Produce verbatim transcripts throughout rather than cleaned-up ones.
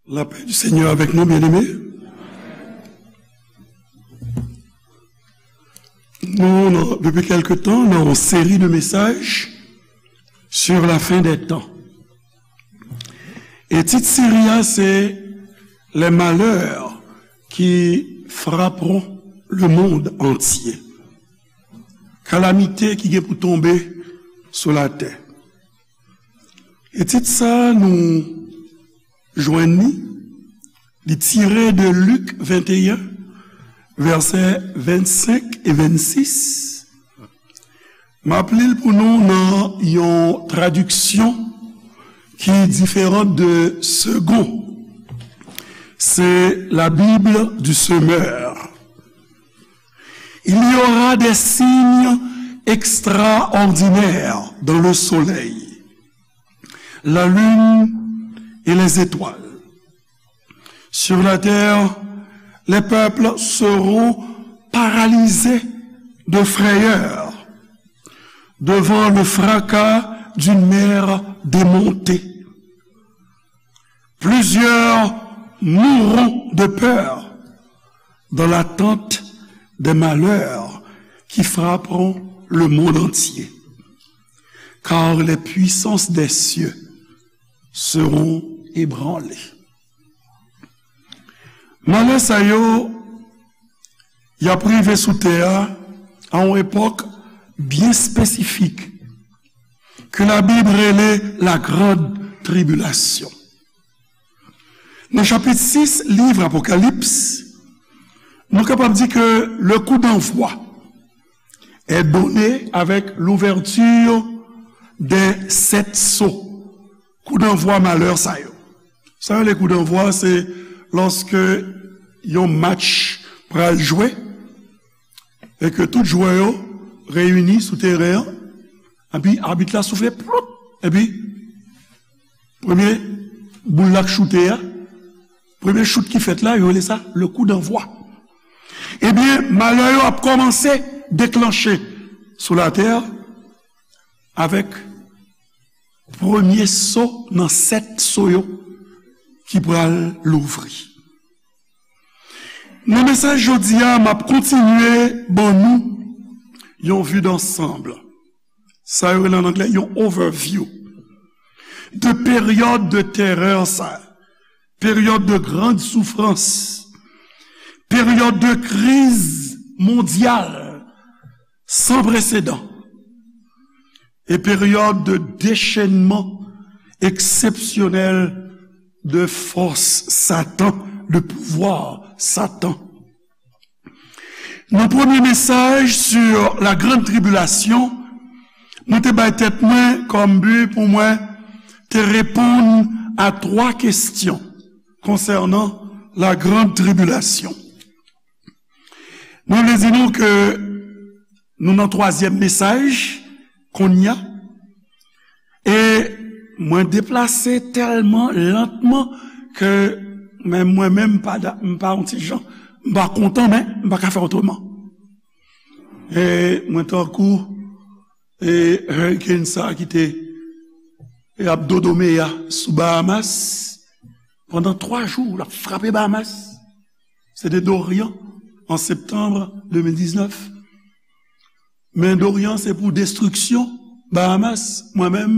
La paix du Seigneur avec nous, bien-aimés. Nou, nan, depi kèlke tan, nan yon seri de mesaj sur la fin des temps. E tit seri a, se Les malheurs qui frapperont le monde entier. Kalamite ki gen pou tonbe sou latè. E tit sa nou jwenn li, li tire de Lik venteyen, vèsè vennsenk e vennsis. M ap li l pou nou nan yon tradiksyon ki diferan de Segond. C'est la Bible du semeur. Il y aura des signes extraordinaires dans le soleil, la lune et les étoiles. Sur la terre, les peuples seront paralysés de frayeur devant le fracas d'une mer démontée. Plusieurs mourront de peur dans l'attente des malheurs qui frapperont le monde entier, car les puissances des cieux seront ébranlées. Malè sa yo, y ap rive sou tè a, a yon epòk byen espesifik, ke Labib rele la grande tribulation. Nan chapit sis liv Apokalips, nou kapab di ke le coup d'envoi est donné avec l'ouverture des sept sceaux. Kou danvwa malè sa yo. Sa yo rele kou danvwa, se lòske yon match pral jwe e ke tout jwè yo reyini sou teren an, epi abit la soufle, ploup, epi premye boul la k choute a, premye chout ki fèt la, yo rele sa le coup d'envoi. Ebyen, malè yo ap kòmanse deklanche sou latè avèk premye so nan sèt so yo ki pral louvri. Nan mesaj jodi a, m ap kontinye ban nou yon vue d'ensemble. Sa yo rele an anglè yon overview de peryòd de terè sa, peryòd de grande souffrance, peryòd de kriz mondyal san presedan e peryòd de déchaînement exceptionnel de force Satan, de pouvoir Satan. Nan premye mesaj sur la grande tribulation, mwen te bay tèt mwen kòm bi pou mwen te reponn a twa kesyon konsènan la grande tribulation. Mwen vle di nou ke nou nan twazyèm mesaj kounye a. E mwen deplase tèlman lantman ke men mwen menm m pa da-, m pa yon ti jan, m pa kontan, men m pa ka fè otreman. E mwen tankou, e, hurricane sa ki te, e, ap dodo meya sou Bahamas pandan twa jou, l ap frape Bahamas. Se te Dorian an septanm de mil diznèf. Men Dorian se pou destriksyon Bahamas, mwen menm,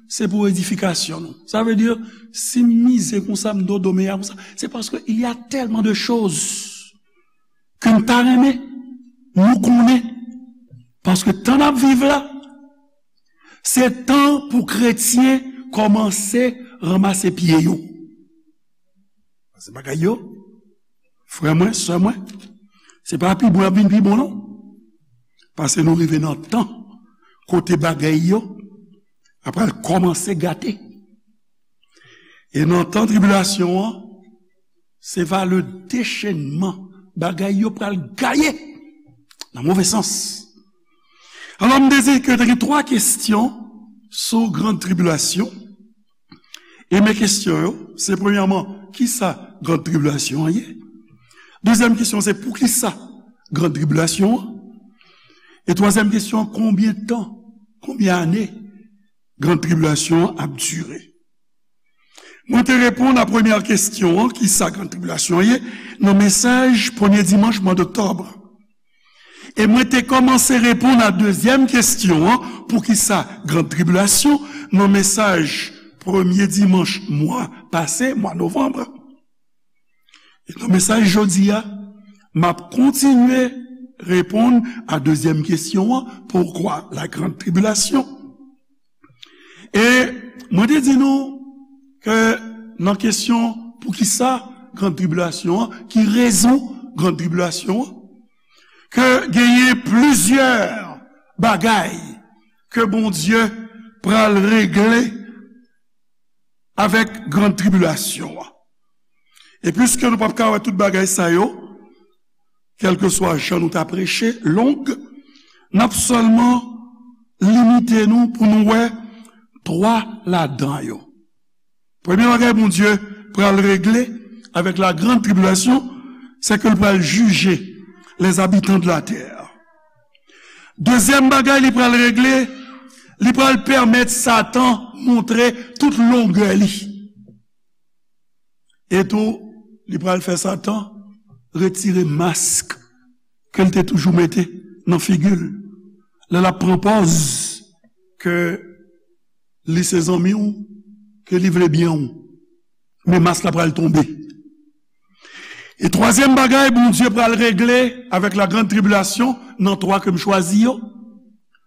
se pou edifikasyon nou. Sa vle di, si m mize konsa, m dodo meya konsa, se paske il y a tellement de choses ke m ta renmen nou konnen. Paske tan n ap viv la, se tan pou kretyen kòmanse ranmase pye yo. Se bagay yo, frè mwen, sè mwen, se pa pi bon y ap vin pi bon, non. Paske nou rive nan tan kote bagay yo ap pral kòmanse gate. E nan tan tribilasyon an, se va le déchaînement. Bagay yo pral gaye nan move sans. Alò, m dezi ke te gen twa kesyon sou grande tribulation. E men kesyon yo, se premyèman, kisa grande tribulation an ye? Dezyèm kesyon, se poukisa grande tribulation an? E twazyèm kesyon, konbyen tan, konbyen ane grande tribulation an ap dire? Mwen te reponn a premyè kesyon an, ki sa Grann Tribilasyon ye, nan mesaj premye dimanch mwa doktòb. E mwen te kòmanse reponn a dezyèm kesyon an, poukisa Grann Tribilasyon, nan mesaj premye dimanch mwa pase, mwa novanm. E nan mesaj jodi a, m ap kontinye reponn a dezyèm kesyon an, pourquoi la grande tribulation? E mwen te di nou ke nan kesyon poukisa Grann Tribilasyon an, ki rezon Grann Tribilasyon an, ke genyen plizyè bagay ke Bondye pral regle avèk Grann Tribilasyon an. E piske nou p ap ka wè tout bagay sa yo, kèlkeswa jan nou ta preche, long, n ap sèlman limite nou pou nou wè twa ladan yo. Premye bagay Bondye pral regle avèk la grande tribulation, c'est que l pral jije les habitants de la terre. Dezyèm bagay li pral regle, li pral pèmèt Satan montre tout longè li. E tou, li pral fè Satan retire mask ke l te toujou mete nan figi l. Lè l ap pran pòz ke li se zanmi w, ke li vle byen w. Men mask la pral tonbe. E twazyèm bagay Bondye pral regle avèk la grande tribulation, nan twa ke m chwazi yo,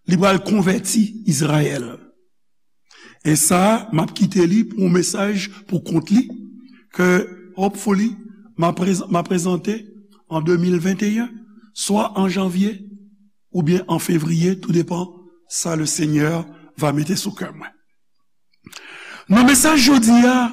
li pral konvèti Izrayèl. E sa, m ap kite li pou yon mesaj pou kont li, ke hopefully, m a prez-, m a prezante an de mil venteyen, swa an janvye oubyen an fevriye, tou depan sa le Seigneur va mete sou kè mwen. Nan mesaj jodi a,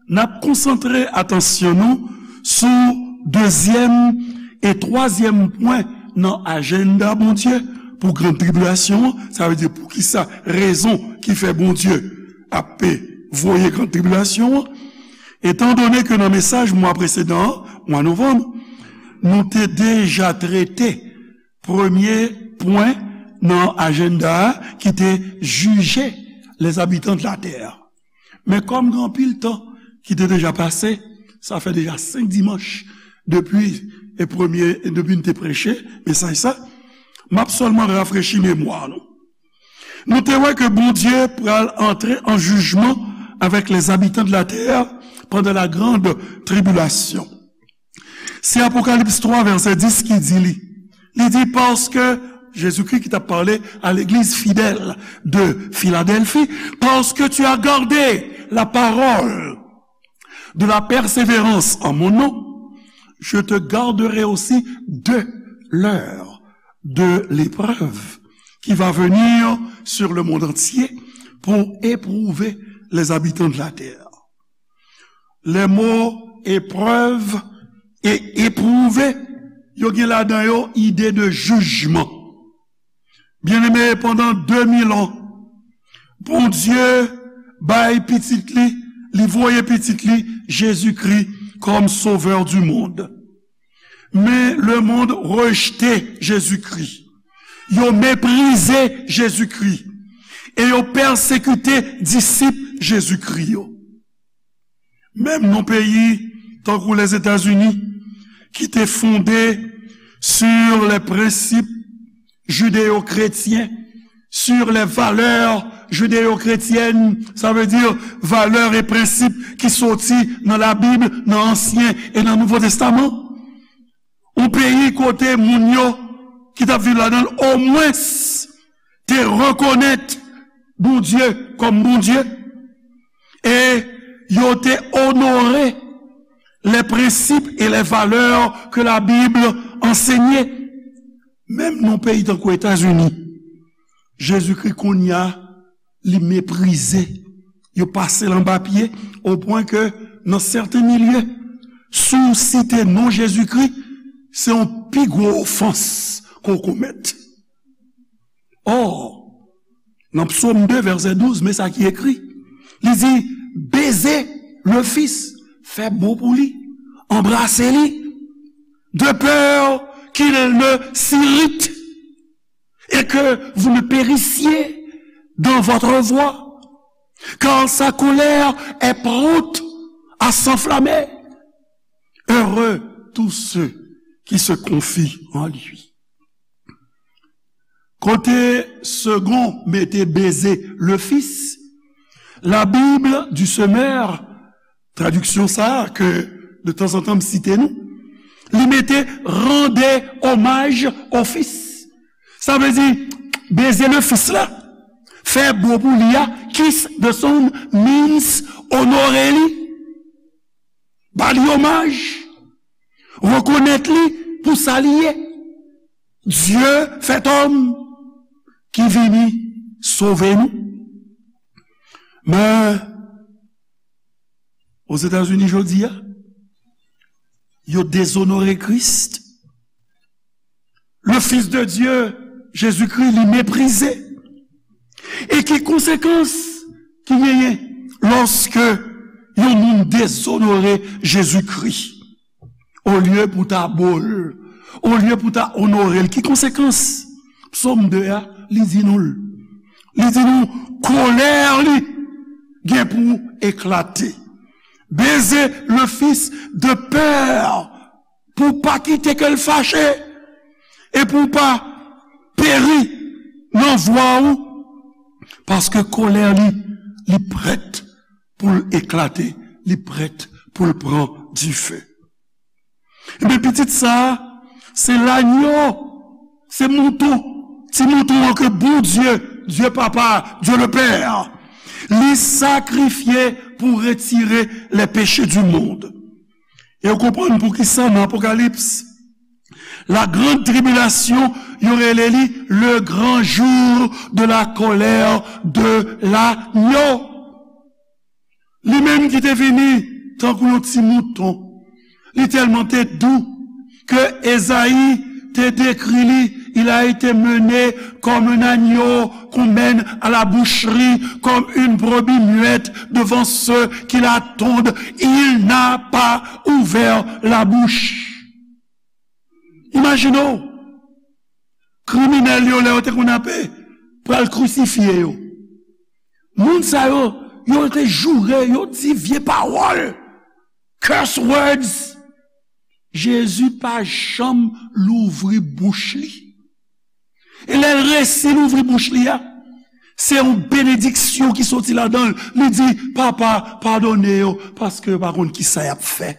n ap konsantre atansyon nou sou dezyèm e twazyèm pwen nan ajanda Bondye pou grande tribulation an, sa vle di poukisa, rezon ki fè Bondye ap voye grande tribulation an. Etandone ke nan mesaj mwa presedan an, mwa novanm, nou te deja trete premye pwen nan ajanda a ki te jije les habitants de la terre. Men kòm gen anpil tan ki te deja pase, sa fè deja senk dimanch depi e premye, depi n te preche mesaj sa, m ap sèlman rafrechi memwa nou. Nou te wè ke Bondye pral antre an jijman avèk les habitants de la terre pendant la grande tribulation. Se Apokalips twa, vèsè dis ki di li. Li di, paske, Jezikri ki t ap pale a legliz fidèl de Filadèlfi, parce que tu as gardé la parole de la persévérance en mon nom, je te garderai aussi de l'heure de l'épreuve qui va venir sur le monde entier pour éprouver les habitants de la terre. Les mots épreuve et éprouver, yo gen ladan yo ide de jijman. Byeneme, pandan de mil an, Bondye bay pitit li, li voye pitit li, Jezikri, comme sauveur du monde. Men le monde rejte Jezikri. Yo meprize Jezikri. E yo pèsekite disip Jezikri yo. Menm nan peyi tankou Lèzetazini, ki te fonde sur les principes judéo-chrétiens, sur les valeurs judéo-chrétiennes, ça veut dire valeurs et principes ki soti nan Labib, nan Ansyen e nan Nouvo Testaman. Yon peyi kote moun yo ki t ap viv ladan l omwens te rekonèt Bondye kòm Bondye, e yo te onore les principes et les valeurs que la Bible enseignait. Menm nan peyi tankou Etazini, Jezikri kounye a, li meprize. Yo pase l anba pye, o pwen ke nan sèten milye, si w site non Jezikri, se yon pi gwo ofans ke w komèt. Ò, nan Psaume deux, verset douze, men sa ki ekri. Li di, baiser le Fils, fè bon pou li, anbrase li, de peur qu'il ne s'irrite et que vous ne périssiez dans votre voie, car sa colère est prompte à s'enflammer. Heureux tous ceux qui se confient en lui. Kote Segond mete beze le Fis, la Bible du Semeur, tradiksyon sa a ke de tanzantan m site nou, li mete rendez hommage au Fils. Sa vle di, beze le Fis la, fè bo pou li a, kiss the Son means onore li, ba li omaj, rekonèt li pou sa li ye. Dieu fait homme ki vini sove nou. Men, Ozetazini jodi a, yo dezonore Kris. Le Fils de Dieu, Jezikri, li meprize. E ki konsekans ki genyen lòske yon moun dezonore Jezikri? Olye pou ta bo l, olye pou ta onore l, ki konsekans? Psòm de a, li di nou l. Li di nou, kolè li gen pou eklate. Beze le Fis de pè pou pa kite ke l fache e pou pa peri nan vwa ou, paske kolè li, li prèt pou l eklate, li prèt pou l pran dife. Ebyen, pitit sa a, se lanyo, se mouton, ti mouton an ke Bondye, Dye Papa, Dye le Pè, li sakrifye pou retire les péchés du monde. E w konprann poukisa nan Apokalips, la grande tribulation, yo rele li le grand jour de la colère de l'agneau. Li menm ki te vini tankou yon ti mouton. Li tèlman te dou ke Ezayi te dekri li, il a été mené comme un agneau qu'on mène à la boucherie, comme une brebis muette devant ceux qui la tondent. Il n'a pas ouvert la bouche. Imajine w, kriminèl yo, lè yo te konn ape pral krisifye yo. Moun sa yo, yo te joure, yo di vye pawòl, curse words. Jezi pa janm louvri bouch li. E lè l resi louvri bouch li a, se yon benediksyon ki soti ladan l. Li di, Papa, padone yo, paske yo pa konn kisa y ap fè.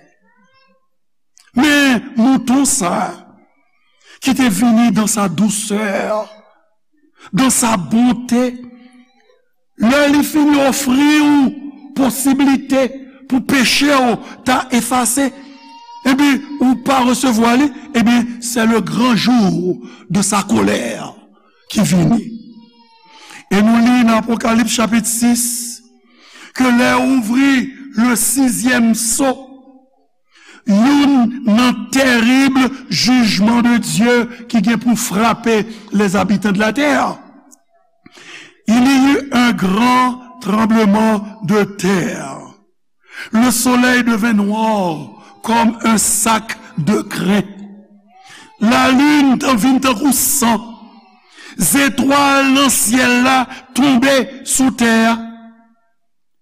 Men mouton sa a, ki te vini dans sa douceur, dans sa bonté, lè li fin ofri w posiblite pou peche w ta efase, epi ou pa resevwa li, ebyen, c'est le grand jour de sa colère ki vini. E nou li nan Apokalips chapit sis, ke lè ouvri le sizyèm so, youn nan tèrib jijman de Dye ki gen pou frape les habitants de la terre. Il y eut un grand tremblement de terre. Le soleil devint noir comme un sac de crin. Lalin te vin tankou san. Zetwal nan syèl la tonbe sou tè a.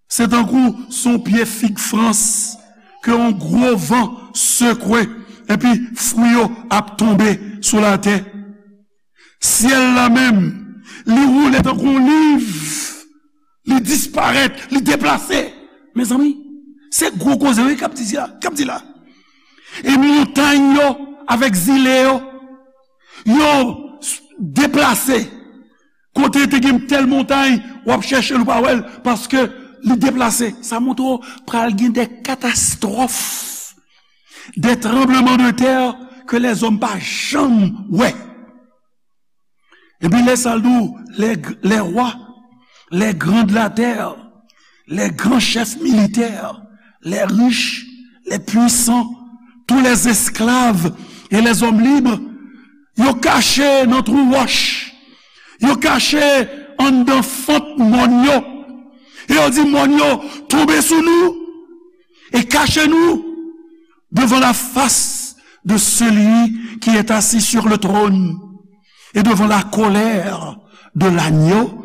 Se tankou se yon pye fig frans ke yon gwo van sekwe, epi fwi yo ap tonbe sou latè. Syèl la menm, li woule tankou yon liv, li disparèt, li deplase. Mezanmi, se gwo koze wi k ap di la, k ap di la. E montay yo avèk zile yo, yo s-, deplase. Kote te gen tèl montay, w ap chèche l, ou pa wè l, paske li deplase. Sa montre w pral gen de katastwòf, de tranbleman de tè ke lèzòm pa janm wè. Epi lè sa l di w, les, les rois, les grands de la terre, les grands chefs militaires, les riches, les puissants, tous les esclaves et les hommes libres, yo kache nan twou wòch, yo kache anndan fant mòn yo, e yo di mòn yo, tonbe sou nou e kache nou devant la face de celui qui est assis sur le trône et devant la colère de l'agneau,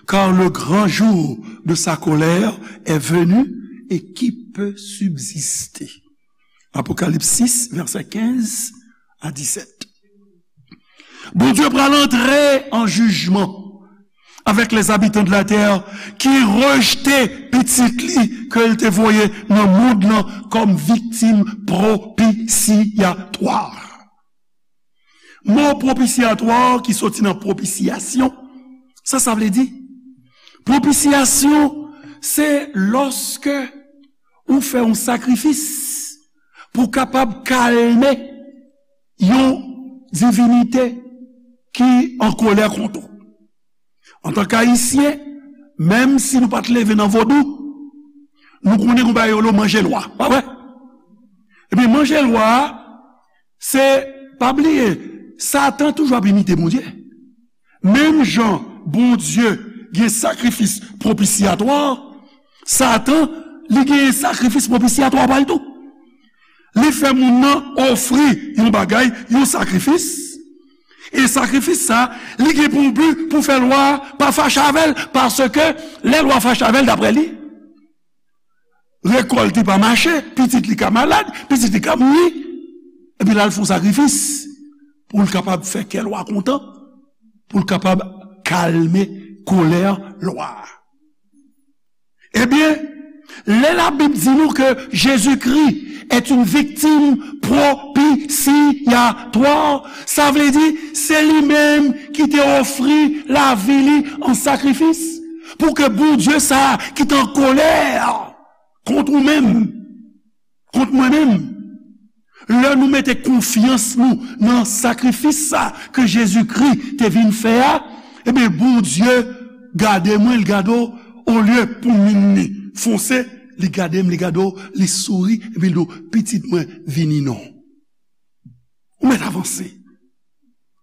car le grand jour de sa colère est venu et qui peut subsister. Apokalips sis, vèsè kenz a disèt. Bondye pral antre an jijman avec les habitants de la terre ki rejte pitit li ke l te voye nan mond lan kòm viktim propisyatwa. Mo propisyatwa ki soti nan propisyasyon, sa sa vle di? Propisyasyon, se lòske ou fè yon sakrifis pou kapab kalme yon divinite ki an kolè kont ou. Antanke Ayisyen, menm si nou pa t leve nan vodou, nou konnen gon bagay yo rele manje lwa, pa vre? Ebyen, manje lwa a, se, pa bliye, Satan toujou ap imite Bondye. Menm jan Bondye gen sakrifis propisyatwa, Satan, li gen sakrifis propisyatwa pa l tou. Li fè moun nan ofri yon bagay, yon sakrifis. E sakrifis sa, li gen pou bi pou fè lwa a pa fache avè l, paske lè lwa fache avè l, daprè li, rekòlt li pa mache, pitit li ka malad, pitit li ka mouri. Epi l al fè yon sakrifis pou l kapab fè kè lwa kontan, pou l kapab kalme kolè lwa a. Ebyen, lè Labib di nou ke Jezikri est une victime propitiatoire, sa vle di se li menm ki te ofri lavi li an sakrifis pou ke Bondye sa a ki t an kolè kont ou menm, kont mwen menm. Lè nou mete konfyans nou nan sakrifis sa ke Jezikri te vin fè a, ebyen, Bondye gade mwen, li gade w, olye pou min li fonse, li gade m, li gade w, li souri, epi li di w, "Pitit mwen, vini non." Ou mèt avanse.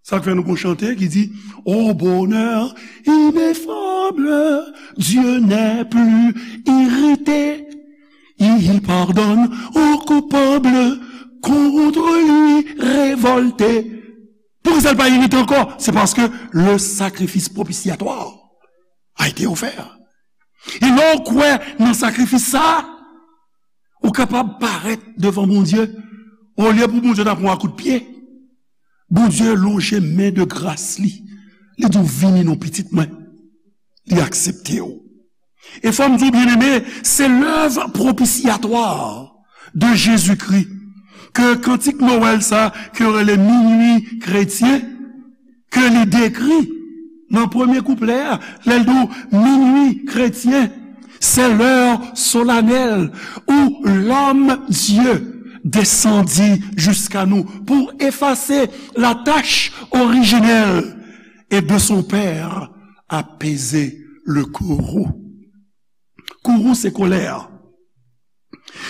Sa k fè nou gon chante ki di, "Au bonheur ineffable, Dieu n'est plus irrité. Il pardonne aux coupables, contre lui révoltés." Poukisa l pa irite ankò? Se paske le sacrifice propitiatoire a été offert. E lè w kwè nan sakrifis sa a, ou kapab parèt devan Bondye, olye pou Bondye ta pran w a kout pye. Bondye lonje men de gras li. Li di w, "Vini non, pitit mwen." Li aksepte w. E fò m di w, byeneme, se lèv propisyatwa de Jezikri ke kantik Nwèl sa, ke yo rele minui kretyen, ke li dekri nan premye kouplè a, lè l di w, "Minui kretyen, c'est l'heure solennelle où l'homme Dieu descendit jusqu'à nous pour effacer la tache originelle et de son Père apaiser le courroux." Courroux se kolè.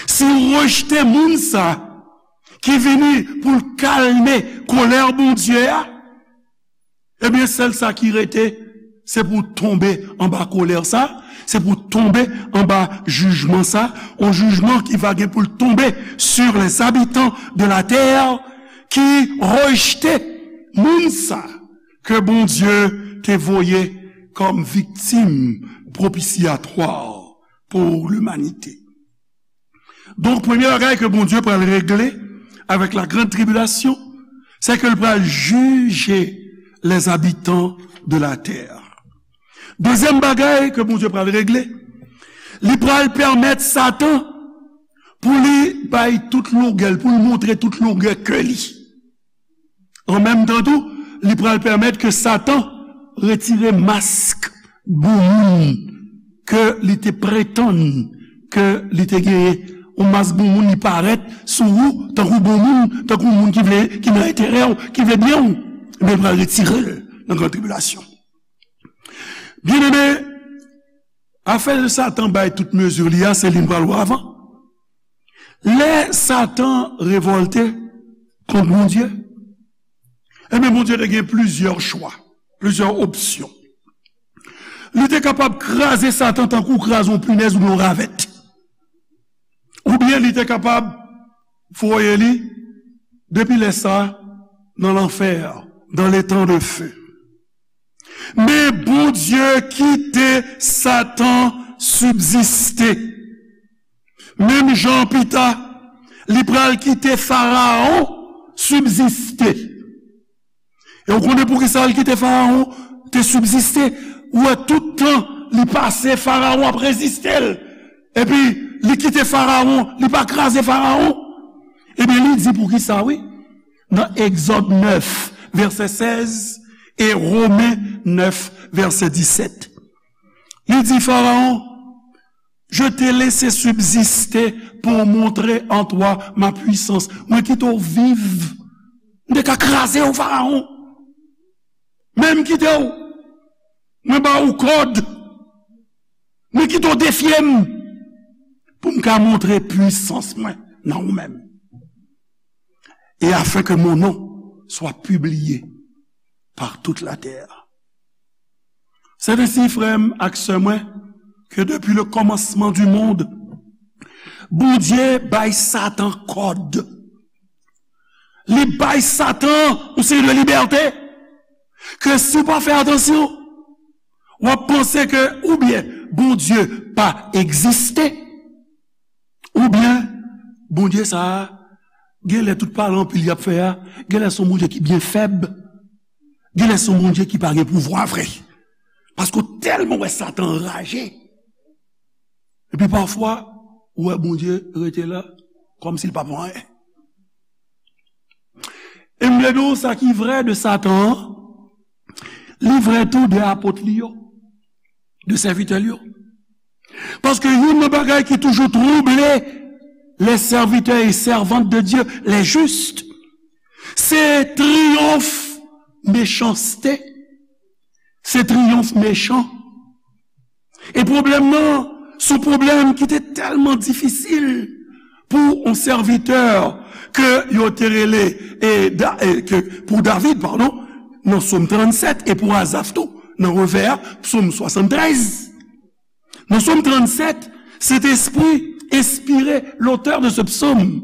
Si w rejte moun sa ki vini pou l kalme kolè Bondye a, ebyen, sèl sa ki rete, se pou w tonbe anba kolè sa, se pou w tonbe anba jijman sa, yon jijman ki va gen pou l tonbe sur les habitants de la terre ki rejte moun sa ke Bondye te voye kòm viktim propisyatwa pou limanite. Donk, premye bagay ke Bondye pral regle avèk la grande tribulation, se ke l pral jije les habitants de la terre. Dezyèm bagay ke Bondye pral regle, li pral pèmèt Satan pou li bay tout longè l, pou l montre tout longè ke li. An menm tan tou, li pral pèmèt ke Satan retire mask bon moun ke li te pretann ke li te genyen. Yon mask bon moun, li parèt sou ou tankou bon moun, tankou moun ki vle, ki nan enterè w, ki vle byen w. Ebyen, li pral retire l nan gran tribilasyon. Byeneme, afè Satan bay tout mezi li a, se li n pral wè avan. Lè Satan revòlte kont Bondye, ebyen, Bondye te gen plizyè chwa, plizyè opsyon. Li te kapab kraze Satan tankou w kraze yon pinèz oubyen yon ravèt. Oubyen li te kapab voye li depi lè sa a nan lanfè, dans l'étang de feu. Men Bondye kite Satan sibziste. Menm jan pita, li pral kite Farawon sibziste. E w konnen poukisa l kite Farawon te sibziste? Ou wè, tout tan li pase, Farawon ap reziste l. Epi, li kite Farawon, li pa kraze Farawon. Ebyen, li di poukisa, wi. Nan Egzòd nèf, vèsè sèz, e Women nèf, vèsè disèt. Li di Farawon, Je t'ai laissé subsister pour montrer en toi ma puissance. Mwen kite w viv. M te ka kraze w, Farawon. Men m kite w. Mwen ba ou kòd. Mwen kite w defye m. Pou m ka montre pwisans mwen nan ou menm. Et afin que mon nom soit publié par toute la terre. C'est ainsi, frè m ak sè mwen, que depuis le commencement du monde, Bondye bay Satan kòd. Li bay Satan yon seri de libète ke si w pa fè atansyon, w ap panse ke oubyen Bondye pa egziste, oubyen Bondye sa a, genlè tout pale anpil y ap fè a, genlè se yon Bondye ki byen fèb, genlè se yon Bondye ki pa gen pouvwa vre. Paske w tèlman wè Satan anraje. Epi pafwa, ou wè Bondye rete la, kòmsi l pa pou anyen. E m vle di w sa ki vrè de Satan an, li vrè tou de apot li yo, de sèvitè l yo. Paske youn nan bagay ki toujou twouble les serviteurs et servantes de Dieu, les justes, se triyonf mechanste, se triyonf mechan. E pwoblèm nan, se yon pwoblèm ki te tèlman difisil pou yon sèvitè ke yo te rele, e, Da- e, ke, pou David, padon, nan Sòm trannsèt, e pou Azaf tou, nan revè a, Sòm swasanntrèz. Nan Sòm trannsèt, Sentespri enspire lotè de se psaume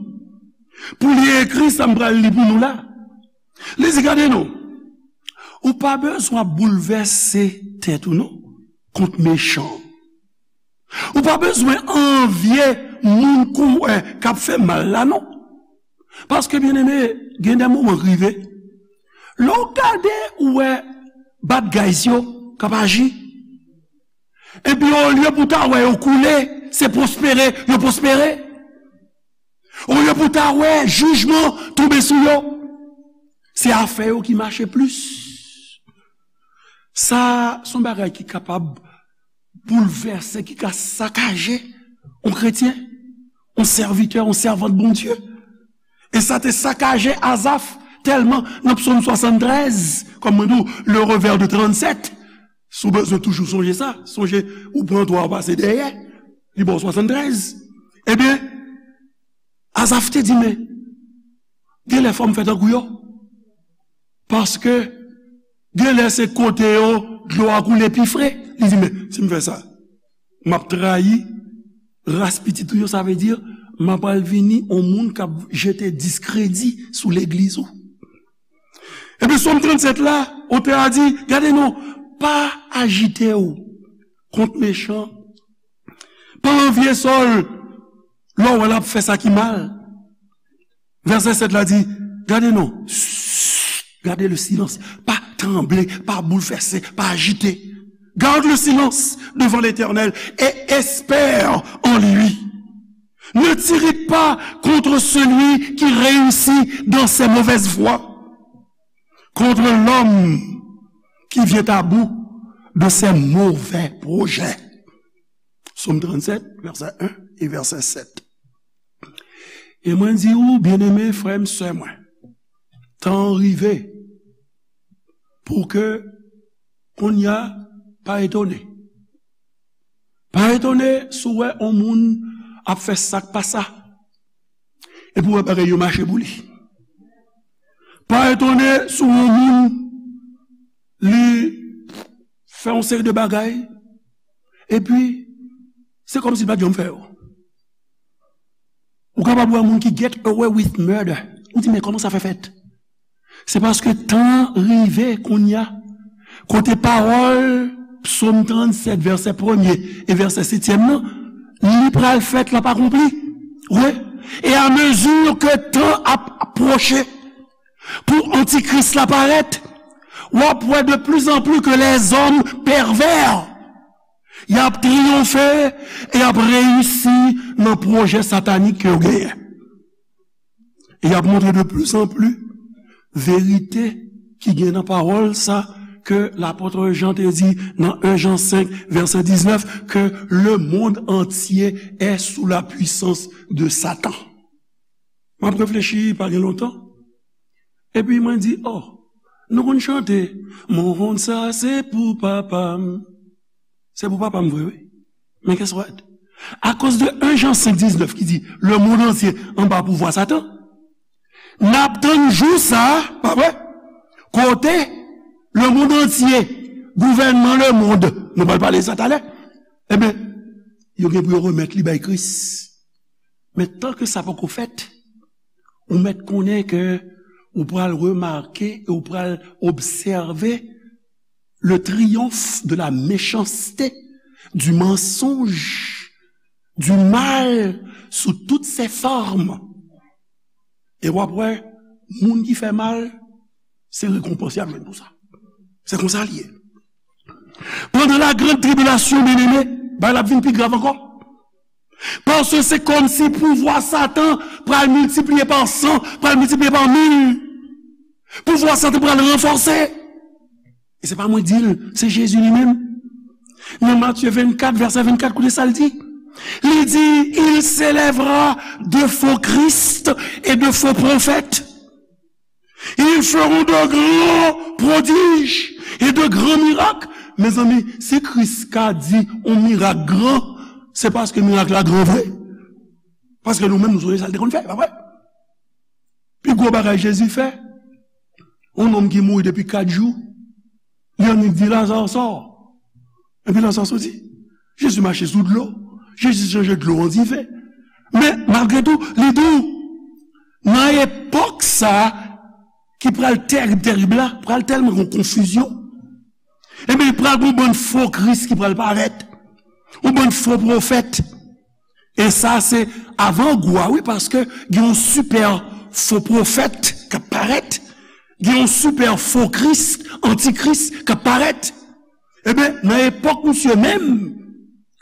pou li ekri sa m pral li pou nou la. Li di, gade non, ou pa bezwen ap boulvèse tèt ou non kont mechan. Ou pa bezwen anvye moun kou, eh, k ap fè mal la non. Paske, byeneme, gen de moman k rive, lè w gade, ou wè bad guys yo k ap aji. Epi olye pou ta wè yo koule, se pwospere yo pwospere. Olye pou ta wè jijman tonbe sou yo, se afè yo ki mache plis. Sa se yon bagay ki kapab boulvèse, ki ka sakaje yon kretyen, yon sèvitè, yon sèvant Bondye. E sa te sakaje Azaf tèlman nan Psaume soixante-treize, kòm mwen di w, le revers de trente-sept. Si w bezwen toujou sonje sa, sonje ou pran twa ou pase dèyè, li ba w swasann trèz. Ebyen, Azaf te di, men, genlè fò m fè tankou yo. Paske genlè se kote yo dlo a koule pi fre. Li di, men, si m fè sa, m ap trayi ras pitit ou yo, sa vle di, m ap al vini yon moun k ap jete diskredi sou legliz ou. Epi Sòm trannsèt la, otè a di, gade non, pa ajite w kont mechan, pa anvye sa w lè w wè l ap fè sa ki mal. Vèsè sèt la di, gade non, gade le silence, pa tranble, pa boulvèse, pa ajite. Garde le silence devant l'Éternel et espère en lui. Ne t'irrite pas contre celui qui réussit dans ses mauvaises voies, contre l'homme qui vient à bout de ses mauvais projets. Sòm trannsèt, vèsè en e vèsè sèt. E mwen di ou, byeneme frè m, sè mwen, tan an rive pou ke kounye a, pa etone. Pa etone si w wè yon moun ap fè sa k pa sa, epi w wè bagay yo mache pou li. Pa etone si w wè yon moun, li fè yon seri de bagay, epi se kòmsi l pa t janm fè yo. Ou kapab wè moun ki get away with murder. Ou di, men kòman sa fè fèt? Se paske tan an rive kounye a, kote pawòl Sòm trannsèt, vèsè premye e vèsè setyèm nan, Li pral fèt, l ap akonpli. Wi. E a mezi ke tan ap pwoche pou antikris la parèt, w ap wè de plus en plus ke lèzòm pèvè, y ap triyonfe e y ap reyisi nan pwojè satanik ke yo genyen. E y ap montre de plus en plus verite ki gen nan pawòl sa ke lapòt Jan te di nan en Jan senk, vèsè diznèf, que le monde entier est sous la puissance de Satan. M ap reflechi pa gen lontan. Epi mwen di, oh, nou konn chante, Monn sa se pou papa m. Se pou papa m vre, wi. Men guess what? Akoz de en Jan senk diznèf ki di, le monde entier anba pouvwa Satan, n ap tann jou sa, pa vre? Kote le monde entier, gouvènman lemonn, nou pral pale sa talè, ebyen, yo gen pou yo remèt li bay Kris. Men tan ke sa poko fèt, ou mèt konnen ke ou pral remake e ou pral obsève le triomphe de la méchanceté, du mensonge, du mal sous toutes ses formes. E w ap wè, moun ki fè mal, se rekonpans y ap jwenn pou sa. Se konsa l ye. Pandan la grande tribulation, byeneme, bagay la ap vin pi grav ankò. Paske se kòmsi pouvwa Satan pral miltipliye pa san, pral miltipliye pa mil. Pouvwa Satan pral ranfòse. E se pa mwen di l, se Jezi li menm. Nan Matye vennkat, vèsè vennkat, koute sa l di. Li di, il s'élèvera de faux Christ et de faux prophètes. Ils feront de grands prodiges et de grands miracles. Mezanmi, si Kris ka di yon mirak gran, se paske mirak la gran vre. Paske nou menm, nou sonje sa l te konn fè, pa vre? Pi gwo bagay Jezi fè, yon nonm ki mouri depi kat jou, li annik di, Lazare, sò. Epi Lazare soti. Jezi mache sou dlo. Jezi chanje dlo an diven. Men, malgre tou, li di w, nan epòk sa a, ki pral tèrib, tèrib la, pral tèlman gen konfizyon. Ebyen, pral gen yon bann fo Kris ki pral parèt. Yon bann fo pwofèt. E sa se avangou a, wi, paske gen yon sipè fo pwofèt k ap parèt, gen yon sipè fo Kris, antikris k ap parèt. Ebyen, nan epòk misye menm,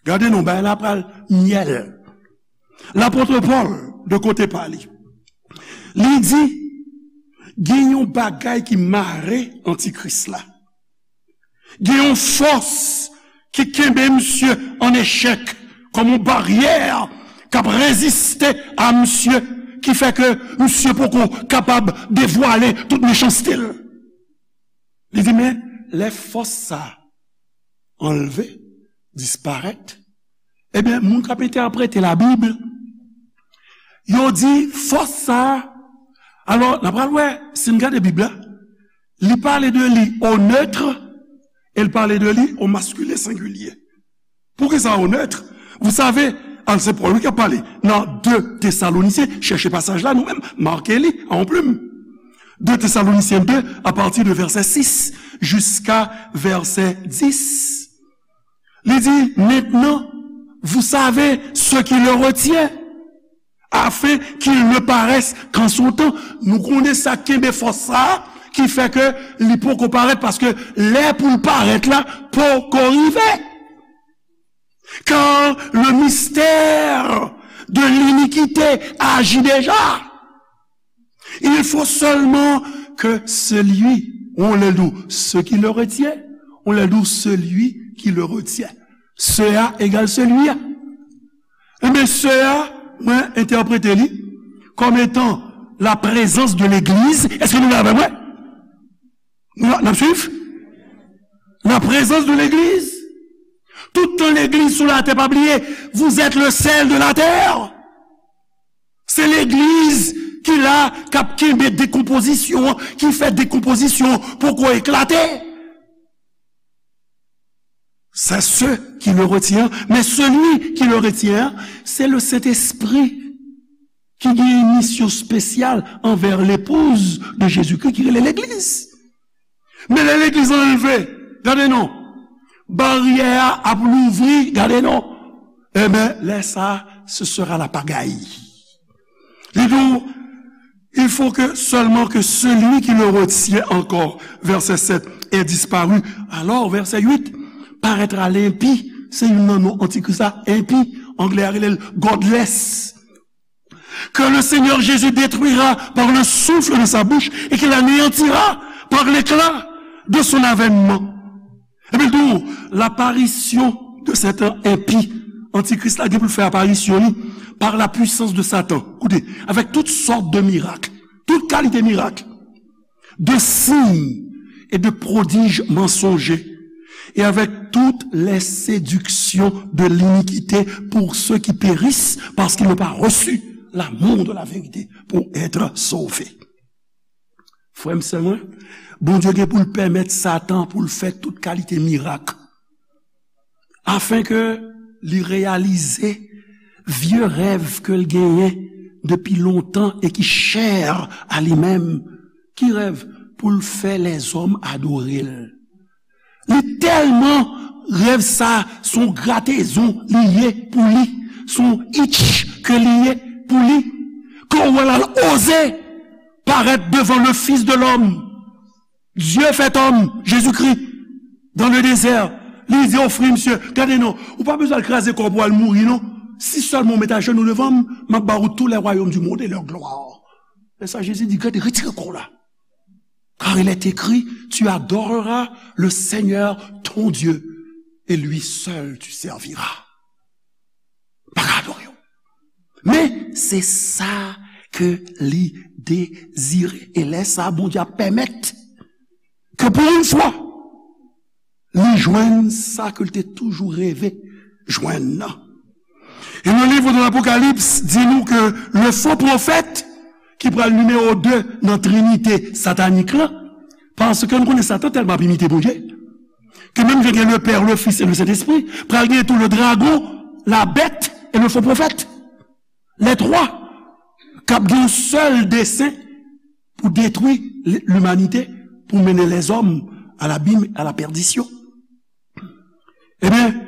gade non, bagay la pral myèl. Lapòt Pòl, de kote pa li, li di, gen yon bagay ki mare antikris la. Gen yon fòs ki kenbe misye an echèk, kòm yon baryè k ap reziste a misye, ki fè ke misye poko kapab devwale tout mechanste l. Li di, men, lè fòs sa a anlve, disparèt, ebyen, moun k ap entèprete Labib, yo di fòs sa a, alò, n a pral wè, si n gade Bib la, li pale de li o neutre e l pale de li o masculin singulier. Poukisa o neutre? Vous savez, al se Pòl wi k ap pale nan de Tesalonisyen, chèche pasaj la nou menm, make li a yon plim. De Tesalonisyen de, a pati de vèsè sis jiska vèsè dis. Li di, maintenant, vous savez ce qui le retient, afin qu'il ne paraisse qu'en son temps. Nou konnen sa k kenbe fòs sa a, ki fè ke li poko parèt, paske lè pou l parèt la poko rive. Car le mystère de l'iniquité agit déjà. Il faut seulement que celui, ou lè l di w, ce qui le retient, ou lè l di w, celui qui le retient. Ce a égal celui a. Ebyen, ce a, mwen entèprete li kòm etan la présence de l'église. Èske nou la avè mwen? Nou, n ap swiv? La présence de l'église. Tout tan legliz sou latè, pa bliye, vous êtes le sel de la terre. Se legliz ki la, k ap kenbe dekonpozisyon an, ki fè dekonpozisyon an poko eklate. C'est ce qui le retient. Mais celui qui le retient, c'est le Saint-Esprit ki gen yon misyon espesyal anvè l'épouse de Jésus-Christ ki rele legliz. Men lè legliz anlve, gade non, baryè a ap louvri, gade non. eh bien, lè sa, ce sera la pagaille. Li di w, il faut que seulement que celui qui le retient encore, verset sept, ait disparu. Alors, verset huit, paraîtra l'impie. Se youn nan non antikris la, enpi, anglè a rele l godless. Que le Seigneur Jésus détruira par le souffle de sa bouche et qu'il anéantira par l'éclat de son avènement. Epi l di w, l'apparition de cet impie, antikris la gen pou l fè aparisyon li par la puissance de Satan. Koute, avec toutes sortes de miracles, tout kalite mirak, de signes et de prodiges mensongers, et avec toutes les séductions de l'iniquité pour ceux qui périssent parce qu'ils n'ont pas reçu l'amour de la vérité pour être sauvés. Frè m, sè mwen, Bondye gen pou l pèmèt Satan pou l fè tout kalite mirak, afin ke li reyalize vye rèv ke l genyen depi lontan e ki chè a li menm. Ki rèv? Pou l fè lèzòm adore l. Li tèlman rèv sa, se yon gratezon li ye pou li, se yon itch ke li ye pou li, ke w wè l al oze parèt devan le Fils de l'homme, Dieu fait homme, Jésus-Christ, dans le désert. Li di, ofri, misye, gade non, ou pa bezwen al kraze kò w pou al mouri non. Si sèlman w met ajenou devan m, m ap ba ou tous les royaumes du monde et leur gloire. Men sa Jezi di, gade, retire kò w la. Car il est écrit, tu adoreras le Seigneur ton Dieu et lui seul tu serviras. Pa ka adore w. Men se sa ke li dezire. E lè sa, Bondye ap pèmèt ke pou yon fwa, li jwenn sa ke l te toujou reve jwenn nan. E le livre de l'Apocalypse di nou ke le faux prophète, ki pral nimewo de nan trinite satanik la, paske nou konnen Satan tèlman ap imite Bondye, ke menm jan gen le Père, le Fils et le Saint-Esprit, pral gen tou le dragon, la bête et le faux prophète. Lè twa k ap gen yon sèl desen pou detwi l-, limanite, pou mennen lèzòm a labim, a la pèdisyon. Ebyen,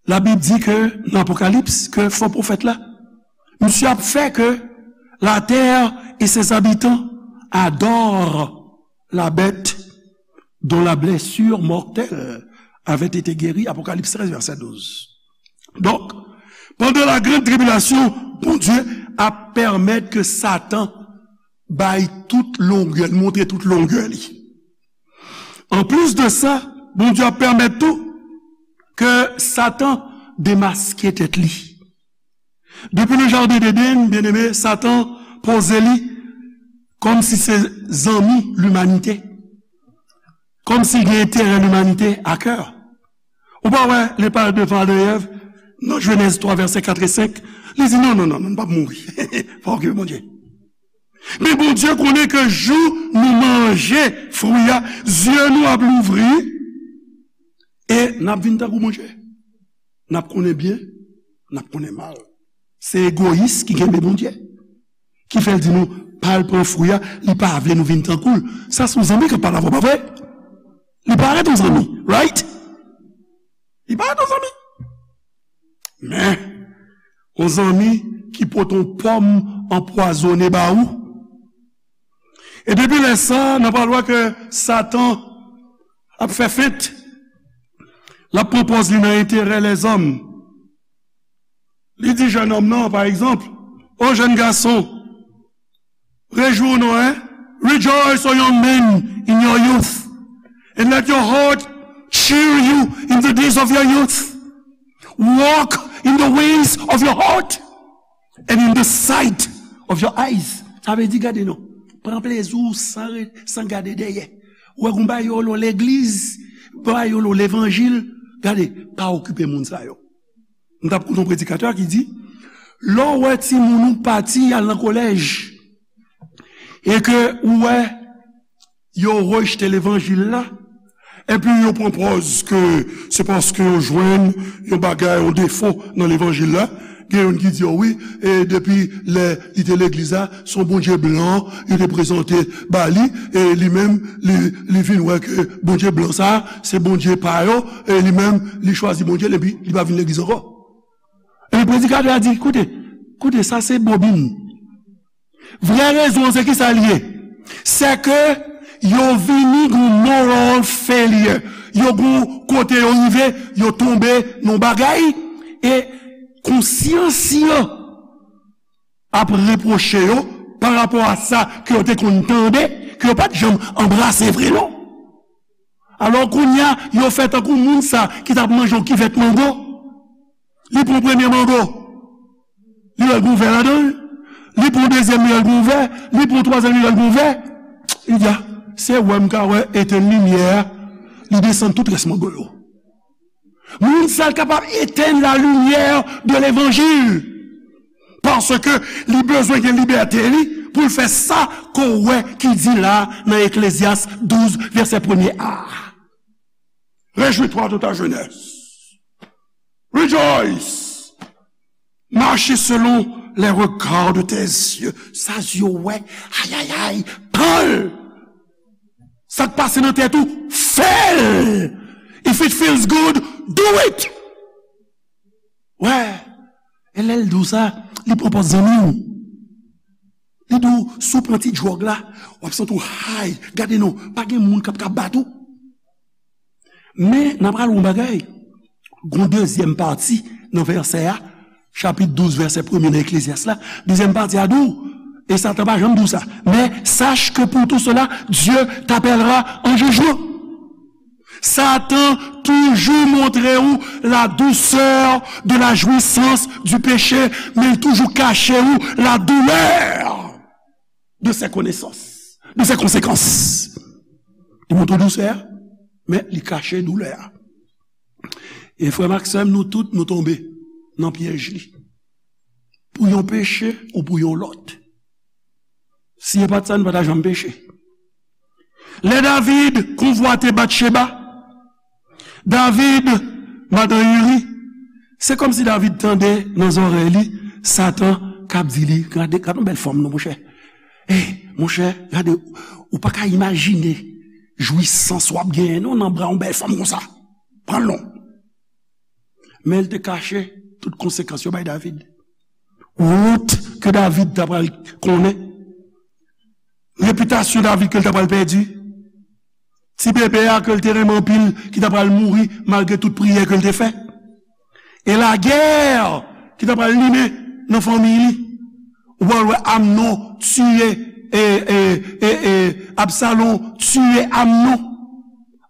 Labib di ke nan Apokalips, ke fo pwofèt la, misye ap fè ke la terre et ses habitants adorent la bête dont la blessure mortelle avait été guérie, Apokalips trèz, vèsè douz. Donk, pandan la grande tribulation, Bondye ap pèmèt ke Satan bay tout longè, montre tout longè li. Anplis de sa, Bondye ap pèmèt tou ke Satan demaske tèt li. Depi le jardin d'Éden, byeneme, Satan poze li kòmsi se zanmi limanite, kòmsi l gen enterè limanite a kè. Ou pa wè, lè l pral devan Adan e Èv, nan Jenèz twa, vèsè kat e senk, li di, non, non, non, non, nou p ap mouri. Pa okipe Bondye. Men Bondye konnen ke jou nou manje fwi a, zye nou ap louvri, e n ap vin tankou Bondye. N ap konnen byen, n ap konnen mal. Se egoyis ki kenbe Bondye. Ki fè l di nou, pa al pran fwi a, li pa vle nou vin tankou l. Sa se yon zanmi k ap pale avè w, pa vre? Li parèt yon zanmi, right? Li parèt yon zanmi. Men, yon zanmi ki pote yon pòm anpwazonnen ba ou. E depi lè sa, n ap pral wè ke Satan ap fè fent. L ap pran pòz li nan enterè lèzòm. Li di jèn òm nan, pa egzanp, o jèn gason, rejwi w non, hein? Rejoice, O young man, in your youth, and let your heart cheer you in the days of your youth. Walk in the ways of your heart and in the sight of your eyes. Sa vle di, gade non, pran plezi w san re-, san gade dèyè. Ou wè gon bagay yo rele w legliz, bagay yo rele w levanjil, gade, pa okipe moun sa yo. M t ap koute yon predikatè ki di, lè w wè timoun ou pati al nan kolèj, e ke ou wè yo rejte levanjil la, epi yo pran pòz ke se paske yo jwenn yon bagay, yon defo nan levanjil la. Gen youn ki di, o wi, e depi lè li te legliz la, se yon Bondye blan yo te prezante ba li, e li menm, li, li vin wè ke Bondye blan sa, se Bondye pa yo, e li menm, li chwazi Bondye l, epi li pa vin legliz ankò. E predikatè a di, koute, koute, sa se bobin. Vrè rezon an se kisa l ye? Se ke yo vini gon moral failure. Yo gon kote yo rive, yo tonbe nan bagay, e konsyans yo ap repwoche yo pa rapò a sa ke yo te konn tande, ke yo pa t janm anbrase vre non. Alò kounye a, yo fè tankou moun sa ki t ap manje yon kivèt mango. Li pran premye mango, li wè l gon vè ladan l. Li pran dezyèm, li wè l gon vè. Li pran twazyèm, li wè l gon vè. Li di, a, se wè m ka wè etenn limyè a. Li desann tout rès mango yo. Moun sa l kapab etenn la lumière de l'évangile. Paske li bezwen gen libète li pou l fè sa ke w wè ki di la nan Eklezyas douz, vèsè premye a. Réjouis-toi de ta jeunesse. Rejoice. Marche selon les regards de tes yeux. Sa zye w wè, ayayay, pran l. Sa k pase nan tèt ou, fè l. If it feels good, do it. Wè, e lè l di w sa, li pran pòz zanmi w. Li di w, si w pran ti dwòg la, w ap santi w high. Gade non, pa gen moun k ap ka bat ou. Men, n ap pral yon bagay. Gon dezyèm pati nan vèsè a, chapit douz, vèsè premye nan Eklezyas la. Dezyèm pati a di w, e Satan pa janm di w sa. Mais sache que pour tout cela, Dieu t'appellera en jugement. Satan toujou montre w la douceur de la jouissance du péché, men l toujou kache w la douleur de ses connaissances, de ses conséquences. Li montre w dousè a, men li kache doulè a. E frè m ak sè m, nou tout, nou tonbe nan pyèj li. Pou yon peche ou pou yon lòt. Si e pa t sa, nou pa ta janm peche. Lè David konvwate Batcheba, David, madan Iri, se kòmsi David tande nan zòrèy li, Satan k ap di li, gade, gade yon bèl fanm non, monchè. Ey, monchè, gade, ou pa ka imajine jwisans w ap genyen non nan bra yon bèl fanm konsa. Pran l non. Men l te kache tout konsekans yo bay David. Wont ke David ta pral konnen. Repitasyon David ke l ta pral pèdi. Ti bebe a ke l te renmen anpil, ki ta pral mouri malgre tout priyè ke l te fè. E lagè ki ta pral limen nan fanmi li. Ou pral wè Amnon tiye, e, e, e, e, Absalon tiye Amnon.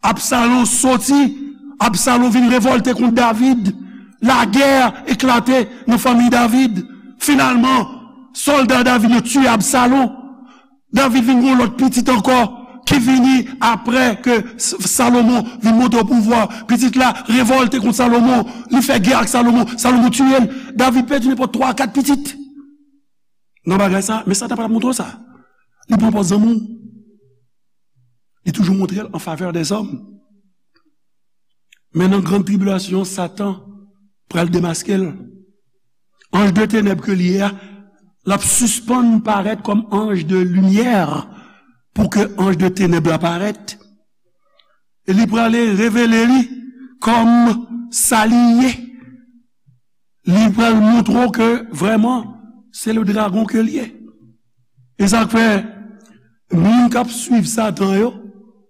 Absalon soti, Absalon vin revòlte kont David. Lagè eklate nan fanmi David. Finalman, sòlda David yo tiye Absalon. David vin gen yon lòt pitit ankò ki vini apre ke S-, Salomon vin monte o pouvwa. Pitit la revòlte kont Salomon, li fè gè ak Salomon, Salomon tiye l. David pèdi nenpòt twa a kat pitit. Nan bagay sa, men Satan pa t ap montre w sa. Li pran pòz zanmi w. Li toujou montre l an favè dèzòm. Men nan grann tribilasyon, Satan pral demaske l. Anj de tenèb ke li ye a, l ap sispann parèt kòm anj de limyè pou ke anj de tenèb la parèt. E li prale revele li kòm sa li ye. Li pral montre w ke vrèman, se le dragon ke l ye. E sa k fè, moun k ap swiv Satan yo,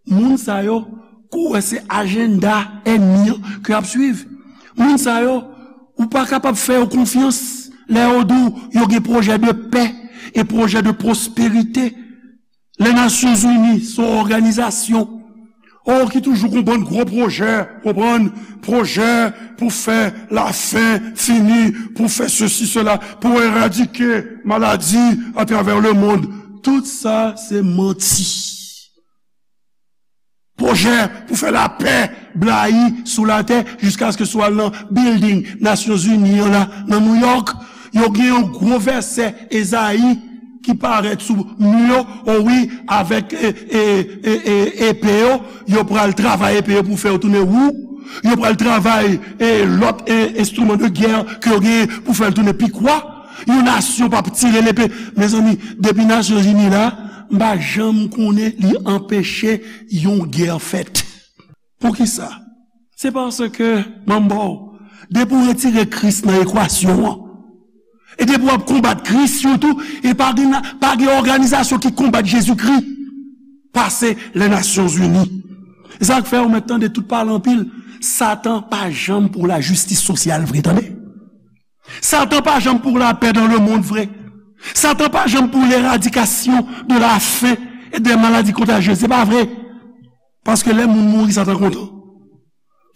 moun sa yo, kou wè se ajanda ènmi an ke y ap swiv. Moun sa yo, ou pa kapab fè yo konfyans lè yo di w yo gen pwojè de pè e pwojè de pwosperite. Lè Nasyonzini se yon òganizasyon, o, ki toujou gon bann gwo pwojè, konprann, pwojè pou fè lafen fini, pou fè sesi, sela, pou eradike maladi atravè lemonn. Tout sa se manti. Pwojè pou fè lapè blayi sou latè jiskaske si w al nan bilding Nasyonzini an la, nan Nouyòk, yo gen yon gwo vèsè Ezayi ki parèt sou mi yo, o wi, avèk, e, e, e, e, epe yo, yo pral travay epe yo pou fè yo tounen wou, yo pral travay, e, lòt, e, enstriman de gè ke yo genyen pou fè l tounen pikwa. Yon nasyon p ap tire lepe. Mezanmi, depi Nasyonzini la, m pa janm konnen li anpeche yon gè fèt. Poukisa? Se paske, manbo, Depi w retire Kris nan ekwasyon an, e depi w ap konbat Kris sitou, e pa gen, pa gen òganizasyon ki konbat Jezikri pase Lè Nasyonzini. E sa k fè ou mèt tande tout pale anpil. Satan pa janm pou lajistis sosyal vre, tande. Satan pa janm pou lapè dans le monde vre. Satan pa janm pou l'éradikasyon de la faim et des maladies contagieuses. Se pa vre. Paske lè moun mouri, Satan kontan.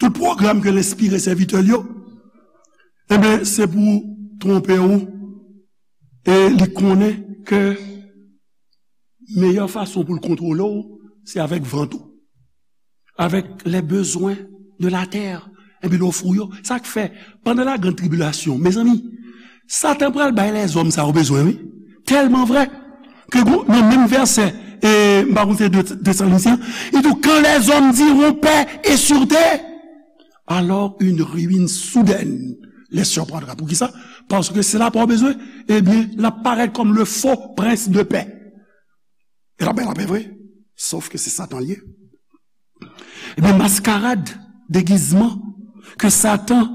Tout pwogram ke l enspire sèvitè l yo, enben, se pou twonpe w. E li konnen ke meyè fason pou l kontwole w, se avèk vant ou, avèk les besoins de la terre. Epi l ofri w yo. Sa k fè, pandan la grande tribulation, mezanmi, Satan pral bay lèzòm sa yo bezwen, wi. Tèlman vrè ke gwo, nan menm vèsè, e, m pa konn se de, Tesalonisyen, li di, quand les hommes diront paix et sûreté, alors une ruine soudaine les surprendra. Poukisa? Paske se lapè w bezwen, ebyen, l ap parèt kòm le faux prince de paix. E l ap bay lapè vre, sòf ke se Satan l ye. Ebyen, maskarad, degizman ke Satan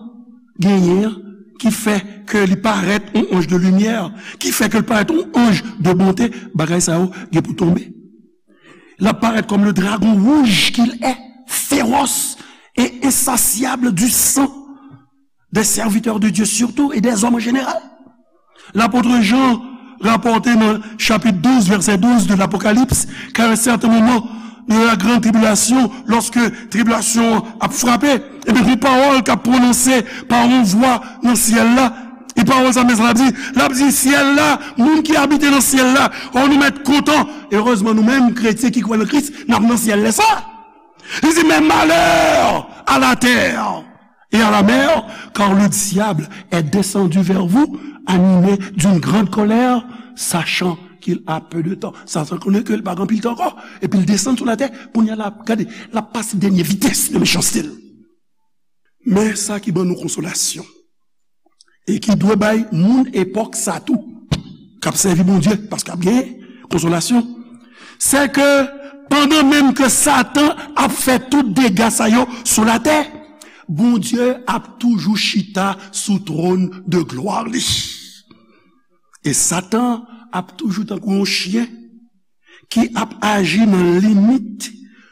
genyen an, ki fè ke li parèt yon anj de limyè, ki fè ke l parèt yon anj de bonte, bagay sa yo gen pou tonbe. L ap parèt kòm le dragon rouge qu'il est, féroce et insatiable du sang des serviteurs de Dieu surtout et des hommes en général. Lapot Jan rapòte nan chapit douz, vèsè douz de l'Apocalypse, qu'à un certain moment de la grande tribulation, lòske tribilasyon an ap frape, ebyen, gon pawòl k ap pwononse pa yon vwa nan syèl la. E pawòl sa, men sa l ap di, l ap di, syèl la, moun ki abite nan syèl la, o, nou mèt kontan. Erezman, nou menm, kretyen ki kwè nan Kris, n ap nan syèl lè sa. Li di, mais malheur à la terre et à la mer, car le diable est descendu vers vous, animé d'une grande colère, sachant qu'il a peu de temps. Satan konnen ke l pa gen anpil tan ankò, epi l desann sou latè, kounye a l ap, gade, l ap pase dènye vitès de mechanste l. Men sa ki ban nou konsolasyon, e ki dwe bay moun epòk sa tou, k ap sèvi Bondye, paske ap gen konsolasyon, se ke pandan menm ke Satan ap fè tout dega sa yo sou latè, Bondye ap toujou chita sou twòn de glwa li. E Satan ap toujou tankou yon chen ki ap aji nan limit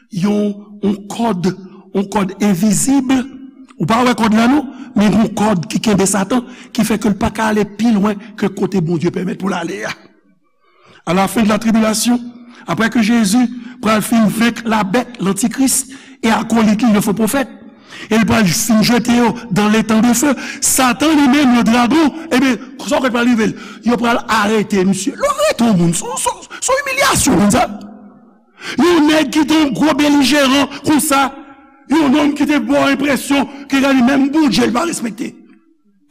yon, yon kòd, yon kòd envizib. Ou pa wè kòd la non, men yon kòd ki kenbe Satan, ki fè ke l pa ka ale pi lwen ke kote Bondye pèmèt pou l ale a. À la fin de la tribulation, après que Jésus pral fin venk la bête, l'antichrist, et akolit li, le faux prophète, e l pral fin jete yo dans l'étang de feu. Satan li menm, le dragon, ebyen, sa w kwè k pral rive l? Yo pral arete misye. Lè w arete yon moun, se yon, se yon, se yon imilyasyon, moun sa. Yon nèg ki te yon gwo belijeran konsa, yon nonm ki te ba w enpresyon ke gade menm Bondye l pa respekte.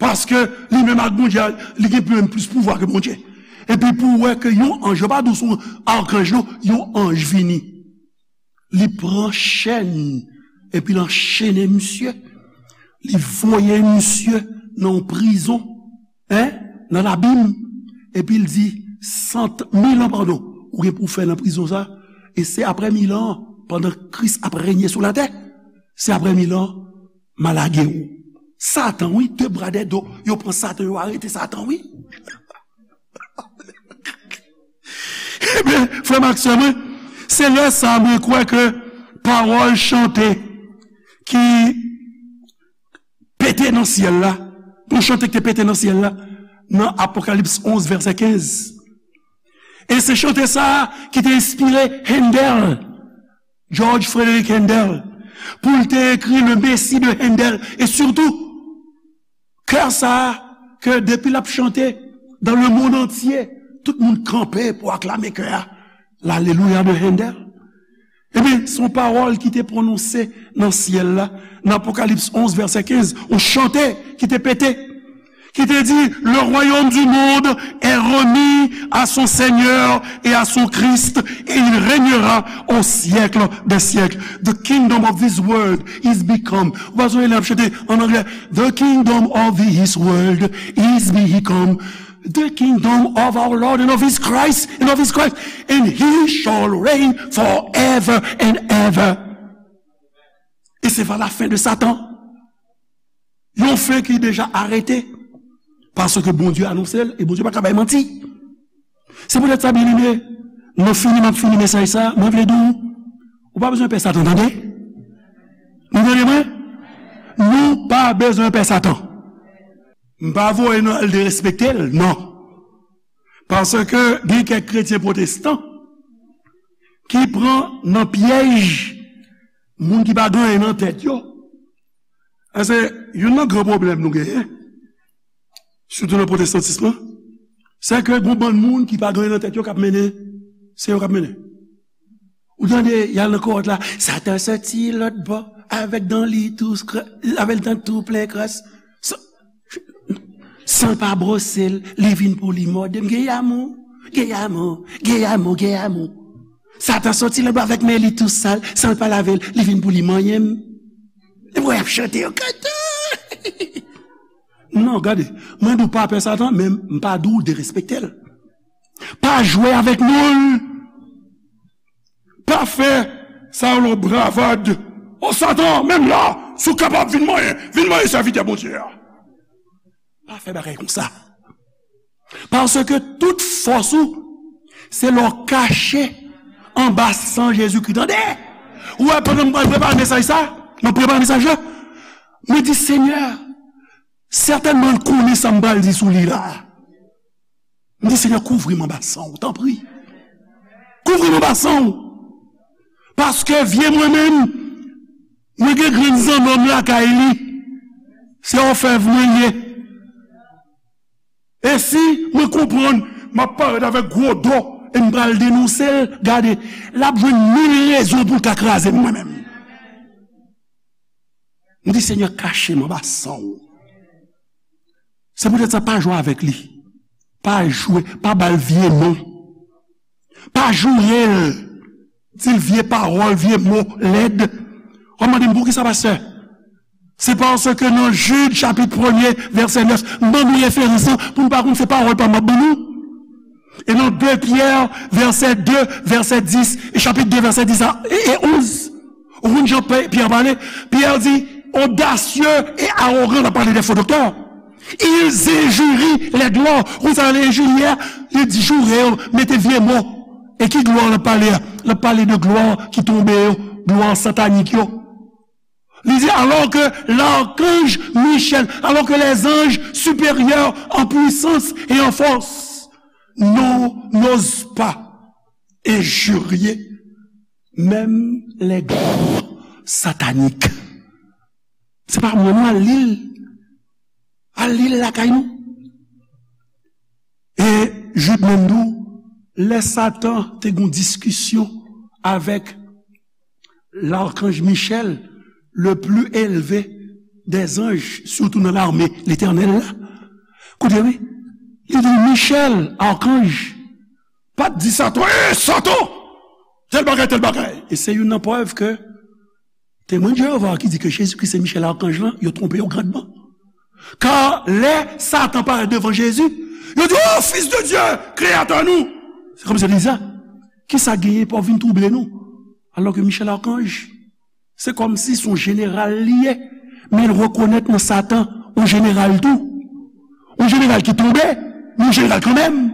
Paske li menm ak Bondye, li gen menm plis pouvwa ke Bondye. Epi pou w wè ke yon anj, yo pa di w se yon akanj non, yon anj vini. Li pran chèn, epi l anchene misye. Li voye misye nan yon prizon, en, nan labim. Epi l di, sant, mil an, padon, ou gen pou w fè nan prizon sa. E se apre mil an, pandan Kris ap renye sou latè, se apre mil an, m a lage w. Satan, wi, de bra, de do, yo pran Satan, yo arete Satan, wi. Ebyen, frè m ak sè mwen, se lè sa mwen kwè ke pawòl chante ki pete nan syèl la, yon chante ki te pete nan syèl la, nan Apokalips onz, vèsè kenz. E se chante sa a ki te enspire Handel, George Frederick Handel, pou l te ekri Le Messie de Handel. E sitou, kè sa a, ke depi l ap chante dans le monde entier, tout moun kanpe pou aklame kè a. L'Alléluia de Handel. Ebyen, se yon pawòl ki te pwononse nan syèl la, nan Apokalips onz, vèsè kenz, yon chante ki te pete, ki te di, le royaume du monde est remis à son Seigneur et à son Christ, et il régnera au siècle des siècles. The kingdom of this world is become. Ou pa sonje lè y ap chante an anglè, the kingdom of this world is become the kingdom of our Lord and of his Christ, and of his Christ, and he shall reign forever and ever. Et c'est vers la fin de Satan. Yon fen ki deja arete. Paske Bondye anonse l, e Bondye pa ka bay manti. Se poutèt sa, byeneme, nan fini m ap fini mesaj sa, mwen vle di w, ou pa bezwen pè Satan, tande? Nou tande mwen? Nou pa bezwen pè Satan. M pa voye nou al derespekte l, non. Paske gen kèk kretyen pwotestan ki pran nan pyèj moun ki pa gen anyen nan tèt yo. E se youn nan gran pwoblèm nou genyen, sitou nan pwotestantis lan, se ke gon bann moun ki pa gen anyen nan tèt yo k ap mennen, se yo k ap mennen. Ou tande, y al nan kowòt la, Satan soti lòt bò, avèk dan li tou, avèk dan tou plen kras. Sa, San l pa bwose l, li vin pou li mòde m. Geyamou, geyamou, geyamou, geyamou. Satan soti lòt bò avèk men li tou sal, san l pa lave l, li vin pou li manyen m. Epi w ap chante yo kanta. Non, gade, mwen di w pa pè Satan, men m pa di w derespekte l. Pa jwe avèk non l. Pa fè sa yo lòt bravèd. O Satan, menm la, si w kapab vin manyen, vin manyen sèvitè Bondye a. Pa fè bagay konsa. Paske tout fòs ou, se lè w kache anba san Jezikri. Tande! Ou wè, pandan m pral prepare mesaj sa, m ap prepare mesaj la, mwen di, Senyè, sètènman, l konnen sa m pral di sou li la. M di, Senyè, kouvri m anba san w, tanpri. Kouvri m anba san w. Paske vye mwen menm, mwen gen grenn zannòm lakay li. Se òfèv mwen ye. E si mwen konprann, m ap parèt avèk gwo do e m pral denonse l, gade, l ap jwenn mil rezon pou l ka kraze m mwen menm. M di, Senyè, kache m anba san w. Se poutèt sa, pa jwe avèk li. Pa jwe, pa ba l vye non. Pa joure l. Di l vye pawòl, vye mo lèd. W ap mande m, poukisa, pastè? Se paske nan Jid, chapit premye, vèsè nèf, m ban nou referans lan pou nou pa konn se pawòl pa m ap ban nou. E nan de Pyè, vèsè de, vèsè dis, e chapit de, vèsè dis a, e, e onz. Ou konn jan Pè-, Pyè pale? Pyè di, audacieux et arrogant, l ap pale de fo doktè. Ils injurient les gloires. Ou konn sa l enjirye a? Li di joure yo, mete vye mo. E ki glwa l ap pale a? L ap pale de glwa ki tonbe yo, glwa satanik yo. Li di, alors que l'archange Michel, alors que les anges supérieurs en puissance et en force n'o-, n'osent pas injurier même les grands sataniques. Se pa mwen, non, al li l. Al li l lakay nou. E Jid menm tou, lè Satan te gen yon diskisyon avèk l'archange Michel, le plus élevé des anges, sitou nan lame Letènèl la. Koute, wi. Li di, Michel, archange, pa t di Satan, "Ey, Satan! Tèl bagay, tèl bagay." E se youn nan prèv ke Temwen Jewova ki di ke Jezikri se Michel arkanj lan, yo twonpe yo grandman. Ka lè Satan parèt devan Jezi, yo di, "O, Fis de Dye, Kreyatè nou!" Se kòmsi yo di sa, "Kisa genyen pou w vin twouble nou?" Alò ke Michel arkanj, se kòmsi se yon jeneral li ye, men l rekonèt nan Satan yon jeneral tou. Yon jeneral ki tonbe, men yon jeneral kanmenm.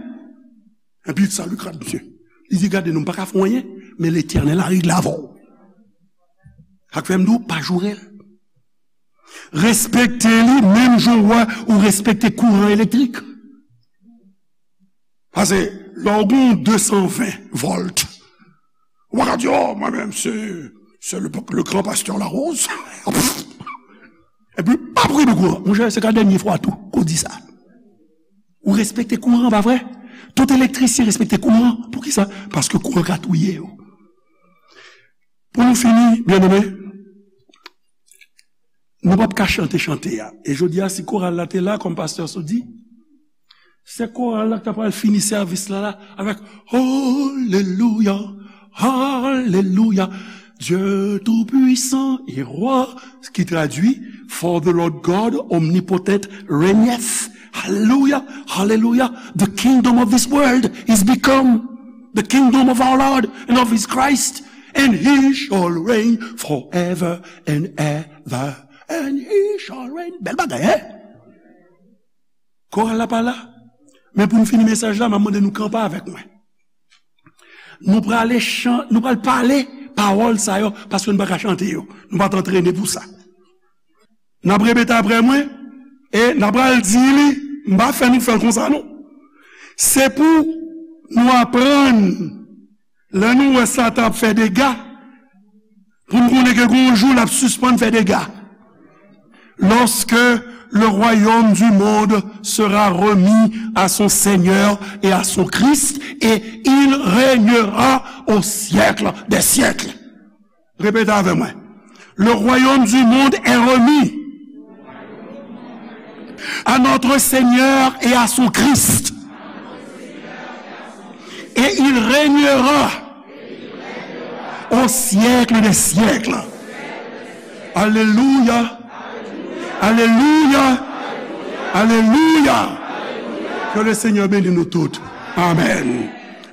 Epi sa li krad misye. Li di, "Gade, nou pa ka fè anyen, men Letènèl a regle avè w." Sa k fè m di w, pa joure l. Respekte li, menm jan w wè ou respekte kouran elektrik. Paske, lè w gen de san ven vòlt, ou pa ka di, "O, mwen menm, se, se le, le grand pasteur Larose." Epi, pa priye pou kouran. Monchè, se ka dènye fwa tou, ke w di sa. Ou respekte kouran, pa vre? Tout elektrisyen respekte kouran. Poukisa? Paske kouran ka touye yo. Pou nou fini, byeneme, nou p ap ka chante chante a. E jodi a, si koral la te la, kòm pastè Sou di, se koral la k ta pral fini sèvis la, la, avèk Alelouya, Alelouya, Dieu tout-puissant et roi, ki tradui, "For the Lord God omnipotent reigneth." Hallelujah, hallelujah. The kingdom of this world is become the kingdom of our Lord and of his Christ, and he shall reign forever and ever And he shall reign. Bèl bagay, en? Koral la pa la. Men pou n fini mesaj la, m ap mande nou kanpe avèk mwen. Nou prale chan-, nou pral pale pawòl sa yo, paske nou pa ka chante yo. Nou pa t antrene pou sa. N ap repete apre mwen, e n ap pral di li, m pa fè nou fè l konsa non. Se pou nou aprann, lè nou wè Satan ap fè dega, pou n konnen ke gon jou l ap sispann fè dega. Lorsque le royaume du monde sera remis à son Seigneur et à son Christ, et il régnera au siècle des siècles. Répétez avec moi. Le royaume du monde est remis à notre Seigneur et à son Christ. Et il régnera au siècle des siècles. Alléluia. Alléluia. Alléluia. Que le Seigneur bénisse nous toutes. Amen.